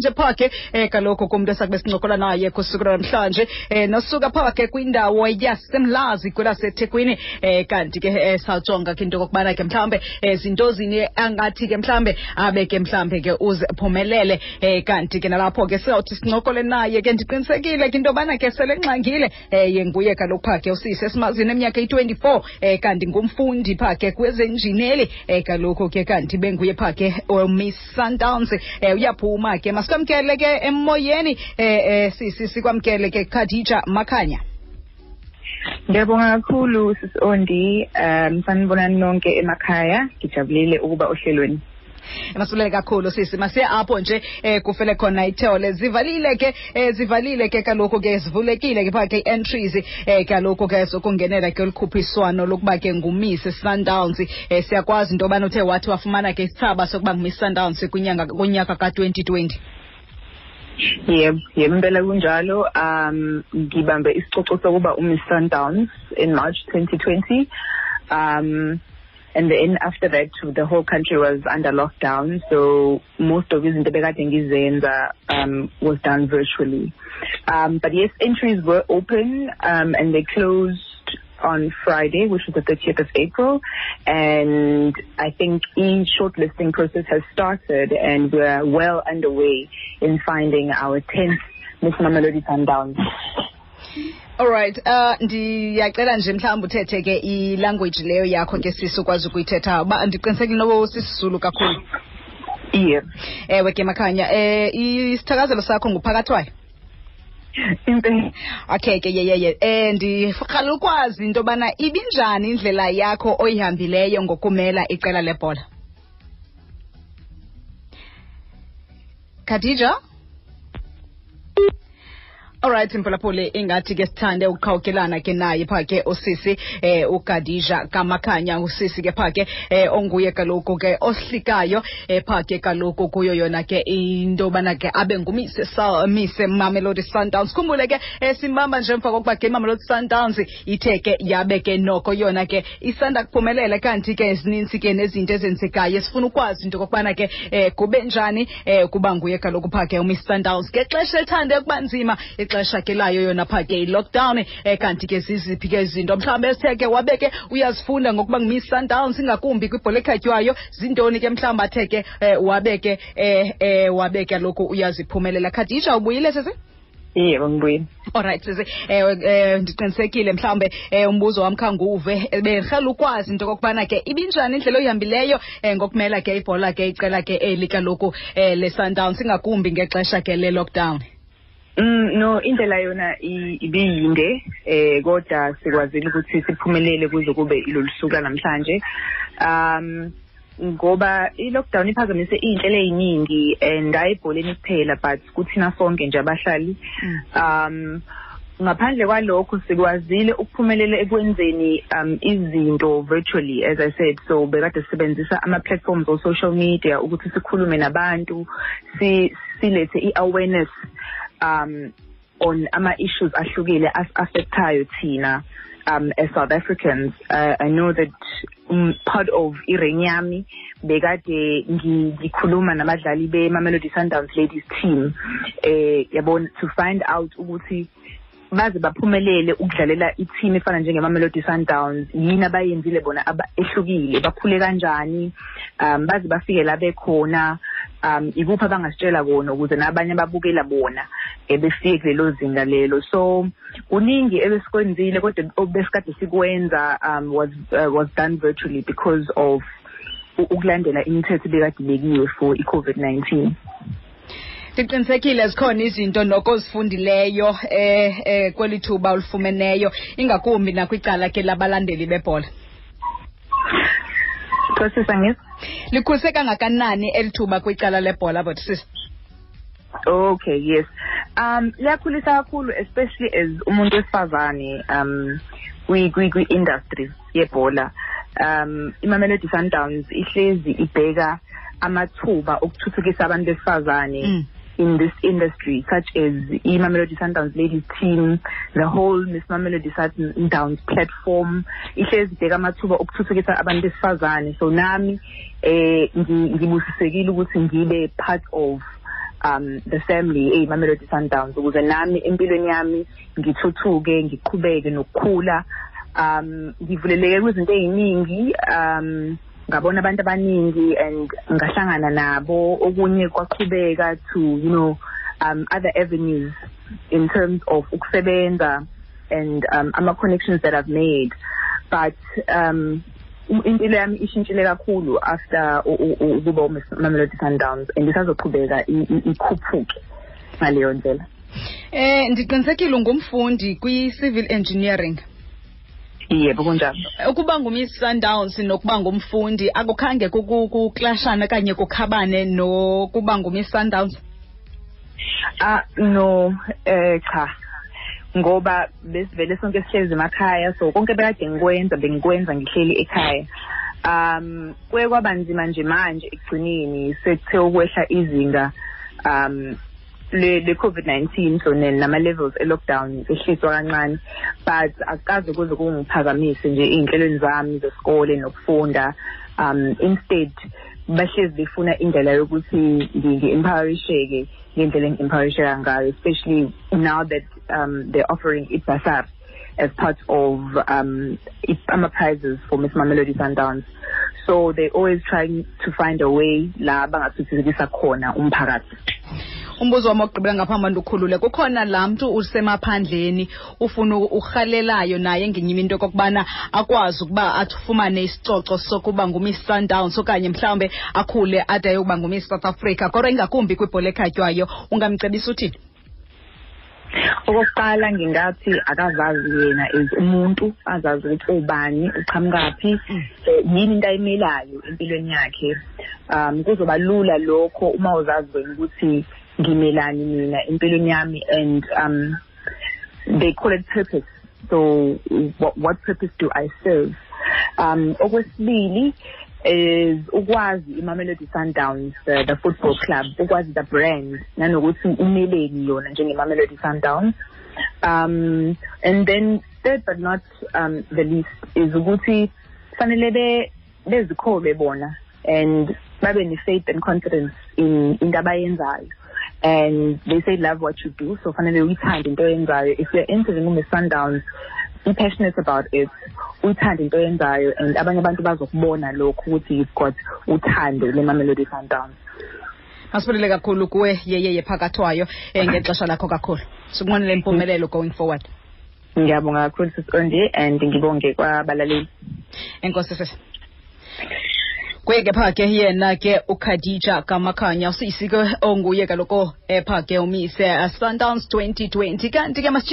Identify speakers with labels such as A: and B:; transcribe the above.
A: nje phaa ke kaloku kumntu esakube sincokola naye kusuku lwanamhlanje, nosuka phaa ke kwindawo yaseMlazi kwelaseThekwini. Kanti ke sawujonga ke into okokubana ke mhlawumbe zinto zini angathi ke mhlawumbe abe ke mhlawumbe ke uziphumelele. Kanti ke nalapho ke sizawuthi sincokole naye ke, ndiqinisekile ke into yobana ke sele nxangile. Ye nguye kaloku phaa ke usisi esimazini eminyaka eyi-24, kanti ngumfundi phaa ke kwezenjineli. Kaloku ke kanti benguye phaa ke Miss Sundowns. Uyaphuma ke, masikwamkele ke emoyeni, sisi, sikwamkele ke Khadija Makhanya.
B: Ngiyabonga kakhulu, sisi Ondi. Sanibonani nonke emakhaya. Ngijabulile ukuba ohlelweni.
A: Masibulele kakhulu, sisi. Masiye apho nje kufele khona ithole. Zivalile ke, zivalile ke kaloku ke, zivulekile ke phaa ke i-entries kaloku ke zokungenela ke olukhuphiswano lokuba ke nguMiss Sundowns. Siyakwazi into yobana uthe wathi wafumana ke isithaba sokuba nguMiss Sundowns kwinyanga kunyaka ka-2020.
B: Yebo, impela kunjalo. Ngibambe isicoco sokuba uMiss Sundowns in March 2020. And then after that the whole country was under lockdown, so most of izinto bekade ngizenza was done virtually. But yes, entries were open and they closed on Friday, which was the 30th of April. And I think each shortlisting process has started and we're well underway in finding our 10th Miss Mamelodi Sundowns.
A: Alright, ndiyacela nje mhlawumbi uthethe ke ilanguage leyo yakho ke, sisi, ukwazi ukuyithetha, uba ndiqinisekile noba sisiZulu kakhulu.
B: Yeah.
A: Ewe ke, Makhanya, isithakazelo sakho nguphakathwayo.
B: Impela.
A: Okay ke, yeyeye, ndirhalela ukwazi into yobana ibinjani indlela yakho oyihambileyo ngokumela iqela lebhola, Khadija. Alright mphulaphuli, ingathi ke sithande ukuqhawukelana ke naye phaa ke usisi uKhadija kaMakhanya, usisi ke phaa ke onguye kaloku ke ohlikayo phaa ke kaloku kuyo yona ke into yobana ke abe nguMiss Miss Mamelodi Sundowns. Khumbule ke simbamba nje emva kokuba ke iMamelodi Sundowns ithe ke yabe ke noko yona ke isanda kuphumelela, kanti ke zininzi ke nezinto ezenzekayo. Sifuna ukwazi into okokubana ke kube njani kuba nguye kaloku phaa ke uMiss Sundowns ngexesha elithande ukuba nzima, ixesha ke layo yona phaa ke i-lockdown. Kanti ke ziziphi ke izinto mhlawumbi esithe ke wabe ke uyazifunda ngokuba nguMiss Sundowns, ingakumbi kwibhola ekhatywayo? Zintoni ke mhlawumbi athe ke wabe ke wabe kaloku uyaziphumelela? Khadija, ubuyile, sisi?
B: Yebo, ngibuyile.
A: Alright sisi, ndiqinisekile mhlawumbe umbuzo wam khanguve. Bendirhalela ukwazi into okokubana ke ibinjani indlela oyihambileyo ngokumela ke ibhola ke, icela ke eli kaloku le-Sundowns, ingakumbi ngexesha ke le-lockdown.
B: No, indlela yona ibiyinde, kodwa sikwazile ukuthi siphumelele kuze kube ilolu suku namhlanje. Ngoba i-lockdown iphazamise iy'nhlelo ey'ningi and hayi ebholeni kuphela, but kuthina sonke nje abahlali. Ngaphandle kwalokho, sikwazile ukuphumelela ekwenzeni izinto virtually, as I said. So bekade sisebenzisa ama-platforms o-social media ukuthi sikhulume nabantu, silethe i-awareness on ama-issues ahlukile as-affectayo thina as South Africans. I know that part of i-reign yami bekade ngikhuluma nabadlali be-Mamelodi Sundowns ladies team, yabona, to find out ukuthi baze baphumelele ukudlalela i-team efana njenge-Mamelodi Sundowns, yini abayenzile bona ehlukile, bakhule kanjani baze bafike la bekhona, ikuphi abangasitshela kona ukuze nabanye ababukela bona befike kulelo zinga lelo. So kuningi ebesikwenzile, kodwa obesikade sikwenza was done virtually because of ukulandela imithetho ebekade ibekiwe for i-COVID-19.
A: Ndiqinisekile zikhona izinto noko ozifundileyo kweli thuba olufumeneyo, ingakumbi nakwicala ke labalandeli bebhola.
B: Process angizwa.
A: Likhulise kangakanani eli thuba kwicala lebhola, but sis?
B: Okay, yes. Liyakhulisa kakhulu, especially as umuntu wesifazane kwi kwi kwi industry yebhola. IMamelodi Sundowns ihlezi ibheka amathuba okuthuthukisa abantu besifazane in this industry, such as iMamelodi Sundowns ladies team, the whole Miss Mamelodi Sundowns platform ihlezi ibheka amathuba okuthuthukisa abantu besifazane. So nami ngibusisekile ukuthi ngibe part of the family eyiMamelodi Sundowns, ukuze nami empilweni yami ngithuthuke, ngiqhubeke nokukhula. Ngivuleleke kwizinto ey'ningi, ngabona abantu abaningi and ngahlangana nabo, okunye kwaqhubeka to other avenues in terms of ukusebenza and ama-connections that I've made. But impilo yami ishintshile kakhulu after ukuba uMamelodi Sundowns, and isazoqhubeka ikhuphuke ngaleyo ndlela.
A: Ndiqinisekile ungumfundi kwi-civil engineering.
B: Yebo, kunjalo.
A: Ukuba nguMiss Sundowns nokuba ngumfundi akukhange kuklashana okanye kukhabane nokuba nguMiss Sundowns?
B: No, cha, ngoba besivele sonke sihlezi emakhaya, so konke bekade ngikwenza bengikwenza ngihleli ekhaya. Kuye kwaba nzima nje manje ekugcineni sekuthe ukwehla izinga le COVID-19, so nama levels e lockdown ehliswa kancane, but akukaze kuze kungiphazamise nje ey'nhlelweni zami zesikole nokufunda. Instead bahlezi befuna indlela yokuthi ngi-empowerisheke ngendlela engi-empowerisheka ngayo, especially now that they're offering i-bursary as part of ama-prizes for Miss Mamelodi Sundowns. So they're always trying to find a way la bangathuthukisa khona umphakathi.
A: Umbuzo wami wokugqibela ngaphambi ndukhulule, kukhona laa mntu usemaphandleni ufuna urhalelayo naye ngenye into okokubana akwazi ukuba afumane isicoco sokuba nguMiss Sundowns okanye mhlawumbe akhule ade ayokuba nguMiss South Africa, kodwa ingakumbi kwibhola ekhatywayo, ungamcebisa uthini?
B: Okokuqala ngingathi akazazi yena as umuntu, azazi ukuthi ubani, uqhamukaphi, yini into ayimelayo empilweni yakhe. Kuzoba lula lokho uma uzazi wena ukuthi ngimelani mina empilweni yami, and they call it purpose. So what purpose do I serve? Okwesibili is ukwazi iMamelodi Sundowns, the football club, ukwazi the brand nanokuthi umeleni yona njenge-Mamelodi Sundowns. And then third but not the least is ukuthi fanele bezikholwe bona and babe ne-faith and confidence in into abayenzayo. And they say love what you do, so fanele uyithande into oyenzayo. If you're entering uMiss Sundowns, be passionate about it, uyithande into oyenzayo, and abanye abantu bazokubona lokho ukuthi you've got uthando leMamelodi Sundowns.
A: Masibulele kakhulu kuwe Yeyeye Phakathwayo ngexesha lakho kakhulu. Sikunqwenele impumelelo going forward.
B: Ngiyabonga kakhulu Sis Ondi, and ngibonge kwabalaleli.
A: Enkosi sisi. Kuye ke pha ke yena ke uKhadija Kamakhanya, usisi ke onguye kaloku epha ke uMiss Sundowns 2020. Kanti ke masitshishe.